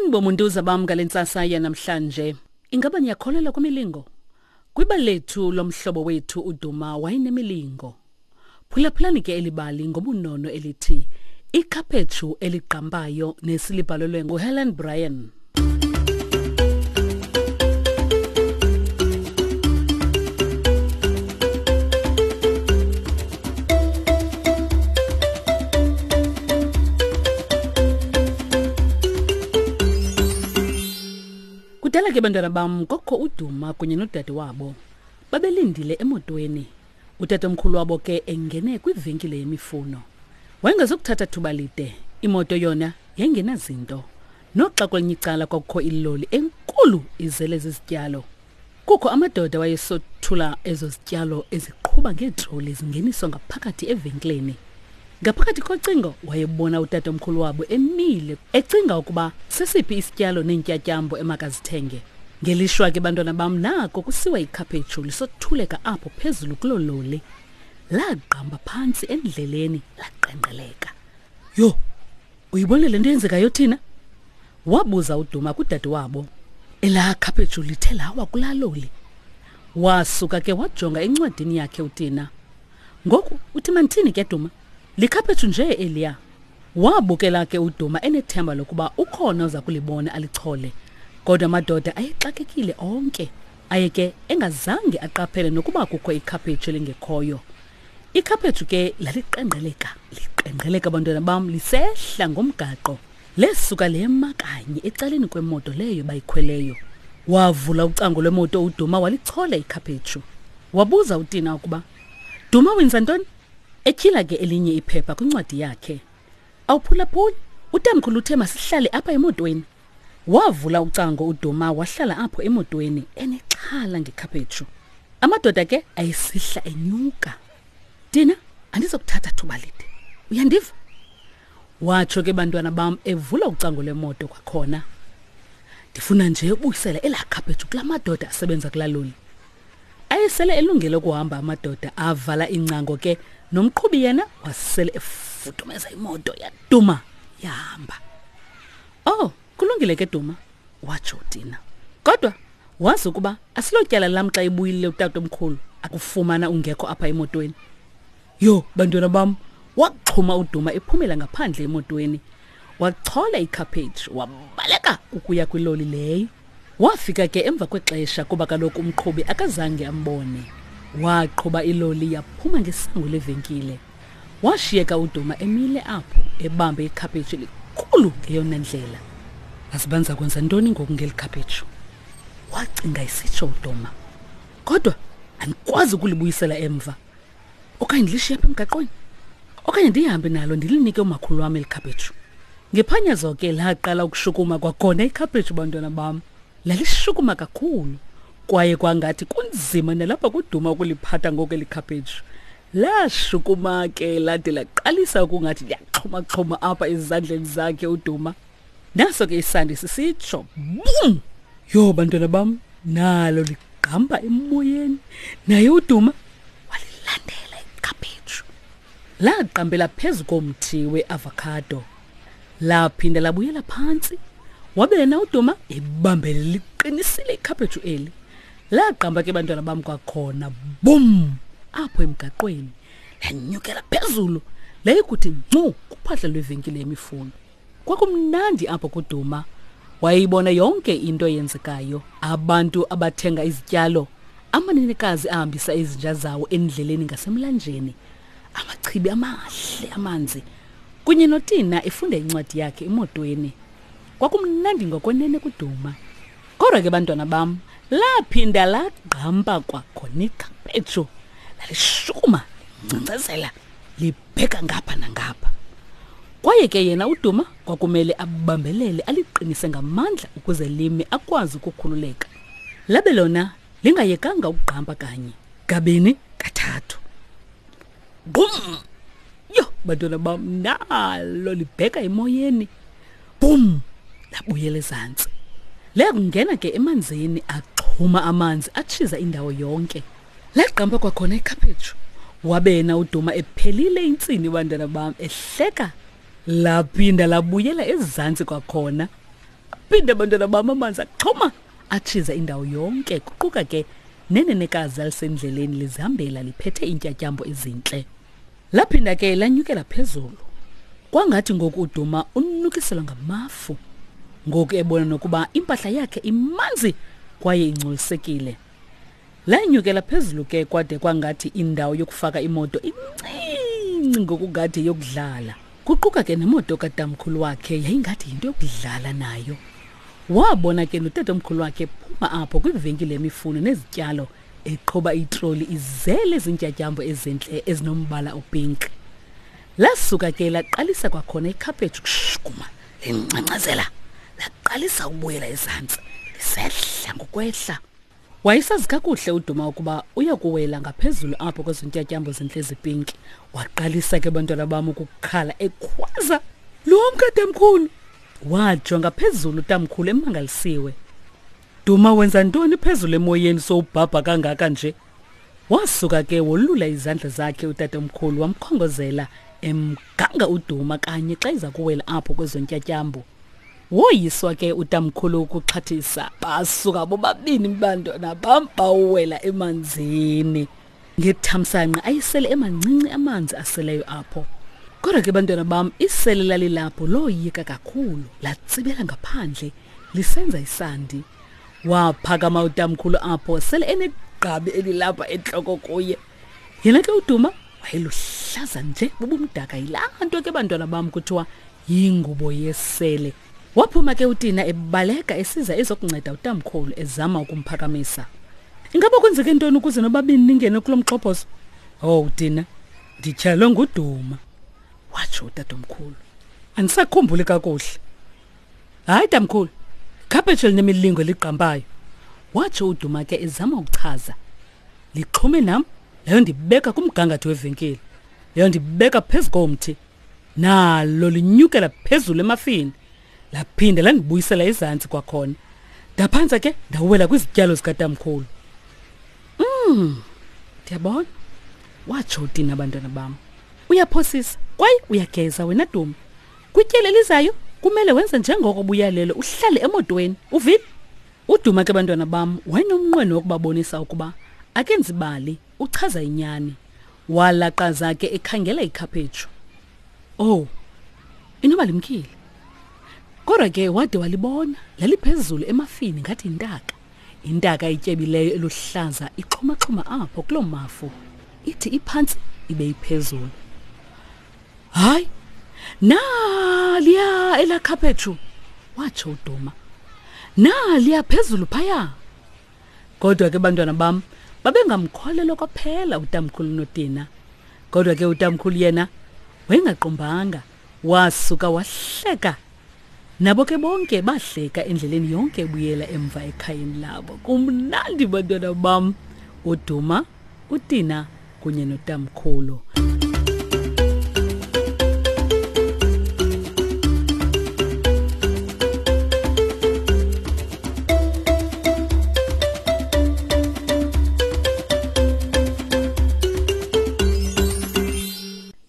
Molweni bomuntuza bam ngale ntsasa yanamhlanje. Ingaba niyakholelwa kwimilingo? Kwibali lethu lomhlobo wethu uDuma wayenemilingo. Phulaphulani ke eli bali ngobunono elithi Ikhaphetshu eligqambayo nesilibhalelwe nguHelen Bryan. Kudala ke bantwana bam kokho uDuma kunye nodade wabo. Babelindile emotweni. Utatomkhulu wabo ke engene kwivenkile yemifuno. Wayengazukuthatha thuba lide, imoto yona yayingenazinto. Noxa kwelinye icala kwakukho iloli enkulu izele zizityalo. Kukho amadoda wayesothula ezo zityalo eziqhuba ngeetroli zingeniswa ngaphakathi evenkileni. Ngaphakathi kocingo wayebona utatomkhulu wabo emile ecinga ukuba sesiphi isityalo neentyatyambo emakazithenge. Ngelishwa ke bantwana bam nako kusiwa ikhaphetshu lisothuleka apho phezulu kuloo loli. Lagqamba phantsi endleleni laqengqeleka. Yho, uyibone le nto yenzekayo thina? Wabuza uDuma kudade wabo. Elaa khaphetshu lithe lawa kulaa loli. Wasuka ke wajonga encwadini yakhe uTina. Ngoku uthi mandithini ke Duma? Likhaphetshu nje eliya. Wabukela ke uDuma enethemba lokuba ukhona oza kulibona alichole. Kodwa amadoda ayexakekile onke. Aye ke engazange aqaphele nokuba kukho ikhaphetshu elingekhoyo. Ikhaphetshu ke laliqengqeleka, liqengqeleka bantwana bam lisehla ngomgaqo. Lesuka lema kanye ecaleni kwemoto leyo bayikhweleyo. Wavula ucango lwemoto uDuma walichola ikhaphetshu. Wabuza uTina ukuba, Duma wenza ntoni? Etyhila ke elinye iphepha kwincwadi yakhe. Awuphulaphuli, utamkhulu uthe masihlale apha emotweni. Wavula ucango uDuma wahlala apho emotweni enexhala ngekhaphetshu. Amadoda ke ayesihla enyuka. Tina, andizokuthatha thuba lide. Uyandiva? Watsho ke bantwana bam evula ucango lwemoto kwakhona. Ndifuna nje ubuyisela elaa khaphetshu kula madoda asebenza kulaa loli. Ayesele elungele ukuhamba amadoda avala ingcango ke nomqhubi yena wasele efudumeza imoto yaduma yahamba. Oh, kulungile ke Duma, watsho uTina. Kodwa wazi ukuba asilotyala lam xa ebuyile utatomkhulu akufumana ungekho apha emotweni. Yho, bantwana bam, waxhuma uDuma ephumela ngaphandle emotweni. Wachola ikhaphetshu wabaleka ukuya kwiloli leyo. Wafika ke emva kwexesha kuba kaloku umqhubi akazange ambone. Waqhuba iloli yaphuma ngesango levenkile. Washiyeka uDuma emile apho ebambe ikhaphetshu elikhulu ngeyona ndlela. Azibanza kwenza ntoni ngoku ngeli khaphetshu? Wacinga isitsho uDuma. Kodwa andikwazi ukulibuyisela emva. Okanye ndilishiye apha emgaqweni. Okanye ndihambe nalo ndilinike umakhulu wam eli khaphetshu. Ngephanyazo ke laqala ukushukuma kwakhona ikhaphetshu bantwana bam. Lalishukuma kakhulu kwaye kwangathi kunzima nalapha kuduma ukuliphatha ngoku eli khaphetshu. Lashukuma ke lade laqalisa ukungathi liyaxhumaxhuma apha ezandleni zakhe uDuma. Naso ke isandi sisitsho bum! Yho bantwana bam, nalo ligqamba emoyeni. Naye uDuma walilandela ikhaphetshu. Laqambela phezu komthi weavocado. Laphinda labuyela phantsi. Wabe yena uDuma ebambele liqinisile ikhaphetshu eli. Laqamba ke bantwana bam kwakhona bum apho emgaqweni. Lanyukela phezulu layikuthi ncu kuphahla lwevenkile yemifuno. Kwakumnandi apho kuDuma. Wayeyibona yonke into eyenzekayo. Abantu abathenga izityalo, amanenekazi ahambisa izinja zawo endleleni ngasemlanjeni, amachibi amahle amanzi, kunye noTina efunda incwadi yakhe emotweni. Kwakumnandi ngokwenene kuDuma. Kodwa ke bantwana bam, laphinda lagqampa kwakhona ikhaphetshu. Lalishukuma, linkcenkcezela, libheka ngapha nangapha. Kwaye ke yena uDuma kwakumele abambelele aliqinise ngamandla ukuze lime akwazi ukukhululeka. Labe lona lingayekanga ukugqampa kanye, kabini, kathathu. Bum! Yho, bantwana bam, nalo libheka emoyeni. Bum! Labuyela ezantsi. Leyakungena ke emanzini axhuma amanzi atshiza indawo yonke. Lagqampa kwakhona ikhaphetshu. Wabe yena uDuma ephelile intsini bantwana bam ehleka. Laphinda labuyela ezantsi kwakhona. Aphinda abantwana bam amanzi axhoma atshiza indawo yonke, kuquka ke nenenekazi alisendleleni lizihambela liphethe iintyatyambo ezintle. Laphinda ke lanyukela phezulu. Kwangathi ngoku uDuma unukiselwa ngamafu. Ngoku ebona nokuba impahla yakhe imanzi kwaye ingcolisekile. Lanyukela phezulu ke kwade kwangathi indawo yokufaka imoto incinci ngokungathi yokudlala. Kuquka ke nemoto katamkhulu wakhe yayingathi yinto yokudlala nayo. Wabona ke notatomkhulu wakhe phuma apho kwivenkile yemifuno nezityalo eqhuba itroli izele zintyatyambo ezintle ezinombala opink. Lasuka ke laqalisa kwakhona ikhaphetshu kushukuma lingcangcazela laqalisa ukubuyela ezantsi lisehla ngokwehla. Wayesazi kakuhle uDuma ukuba uya kuwela ngaphezulu apho kwezo ntyatyambo zintle zipinki. Waqalisa ke bantwana bam ukukhala ekhwaza, Lumka tamkhulu! Wajonga phezulu utamkhulu emangalisiwe. Duma wenza ntoni phezulu emoyeni sowubhabha kangaka nje? Wasuka ke wolula izandla zakhe utatomkhulu wamkhongozela emganga uDuma kanye xa iza kuwela apho kwezo ntyatyambo. Woyiswa ke utamkhulu ukuxhathisa basuka bobabini bantwana bam bawuwela emanzini. Ngethamsanqa ayisele emancinci amanzi aseleyo apho. Kodwa ke bantwana bam isele lalilapho loyika kakhulu latsibela ngaphandle lisenza isandi. Waphakama utamkhulu apho sele enegqabi elilapha entloko kuye. Yena ke uDuma wayeluhlaza nje bubumdaka yilaa nto ke bantwana bam kuthiwa yingubo yesele. Waphuma ke uTina ebaleka esiza ezokunceda utamkhulu ezama ukumphakamisa. Ingaba kwenzeke ntoni ukuze nobabini ningene kulo mxhophozo? Oh Tina, ndityhalwe nguDuma, watsho utatomkhulu. Andisakhumbuli kakuhle. Hayi tamkhulu, ikhaphetshu elinemilingo eligqampayo, watsho uDuma ke ezama ukuchaza. Lixhume nam leyo ndibeka kumgangatho wevenkile, leyo ndibeka phezu komthi. Nalo linyukela phezulu emafini, laphinda landibuyisela ezantsi kwakhona. Ndaphantsa ke ndawela kwizityalo zikatamkhulu. Ndiyabona, watsho uTina abantwana bam. Uyaphosisa kwaye uyageza wena Duma. Kwityeli elizayo kumele wenze njengoko buyalelo uhlale emotweni. Uvile? UDuma ke bantwana bam wayenomnqweno wokubabonisa ukuba akenzi bali, uchaza inyani. Walaqaza ke ekhangela ikhaphetshu. Oh, inoba limkile. Kodwa ke wade walibona laliphezulu emafini ngathi yintaka. Intaka ityebileyo eluhlaza ixhumaxhuma apho kuloo mafu. Ithi iphantsi ibe iphezulu. Hayi, naliya elaa khaphetshu, watsho uDuma. Naliya phezulu phaya. Kodwa ke bantwana bam babengamkholelwa kwaphela utamkhulu noTina. Kodwa ke utamkhulu yena wayengaqumbanga, wasuka wahleka. Nabo ke bonke bahleka endleleni yonke ebuyela emva ekhayeni labo. Kumnandi bantwana bam, uDuma, uTina kunye notamkhulu.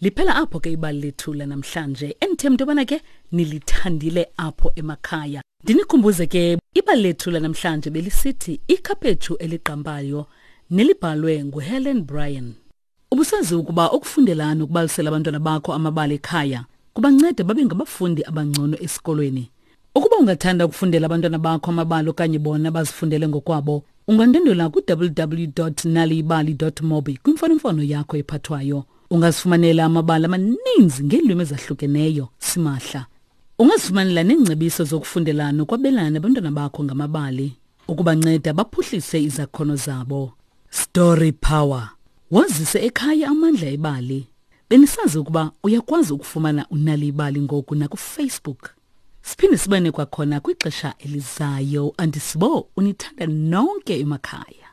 Liphela apho ke ibali lethu lanamhlanje. Endithemba into yobana ke nilithandile apho emakhaya. Ndinikhumbuze ke ibali lethu lanamhlanje belisithi ikhaphetshu eligqampayo nelibhalwe nguHelen Bryan. Ubusazi ukuba ukufundela nokubalisela abantwana bakho amabali ekhaya kubanceda babe ngabafundi abangcono esikolweni. Ukuba ungathanda ukufundela abantwana bakho amabali okanye bona bazifundele ngokwabo, ungandwendwela ku-www.naliyibali.mobi kwimfonomfono yakho ephathwayo. Ungazifumanela amabali amaninzi ngeelwimi ezahlukeneyo simahla. Ungazifumanela neengcebiso zokufundela nokwabelana nabantwana bakho ngamabali ukubanceda baphuhlise izakhono zabo. Story Power. Wazise ekhaya amandla ebali. Benisazi ukuba uyakwazi ukufumana uNali Ibali ngoku nakuFacebook. Siphinde sibane kwakhona kwixesha elizayo. Andisibo unithanda nonke emakhaya.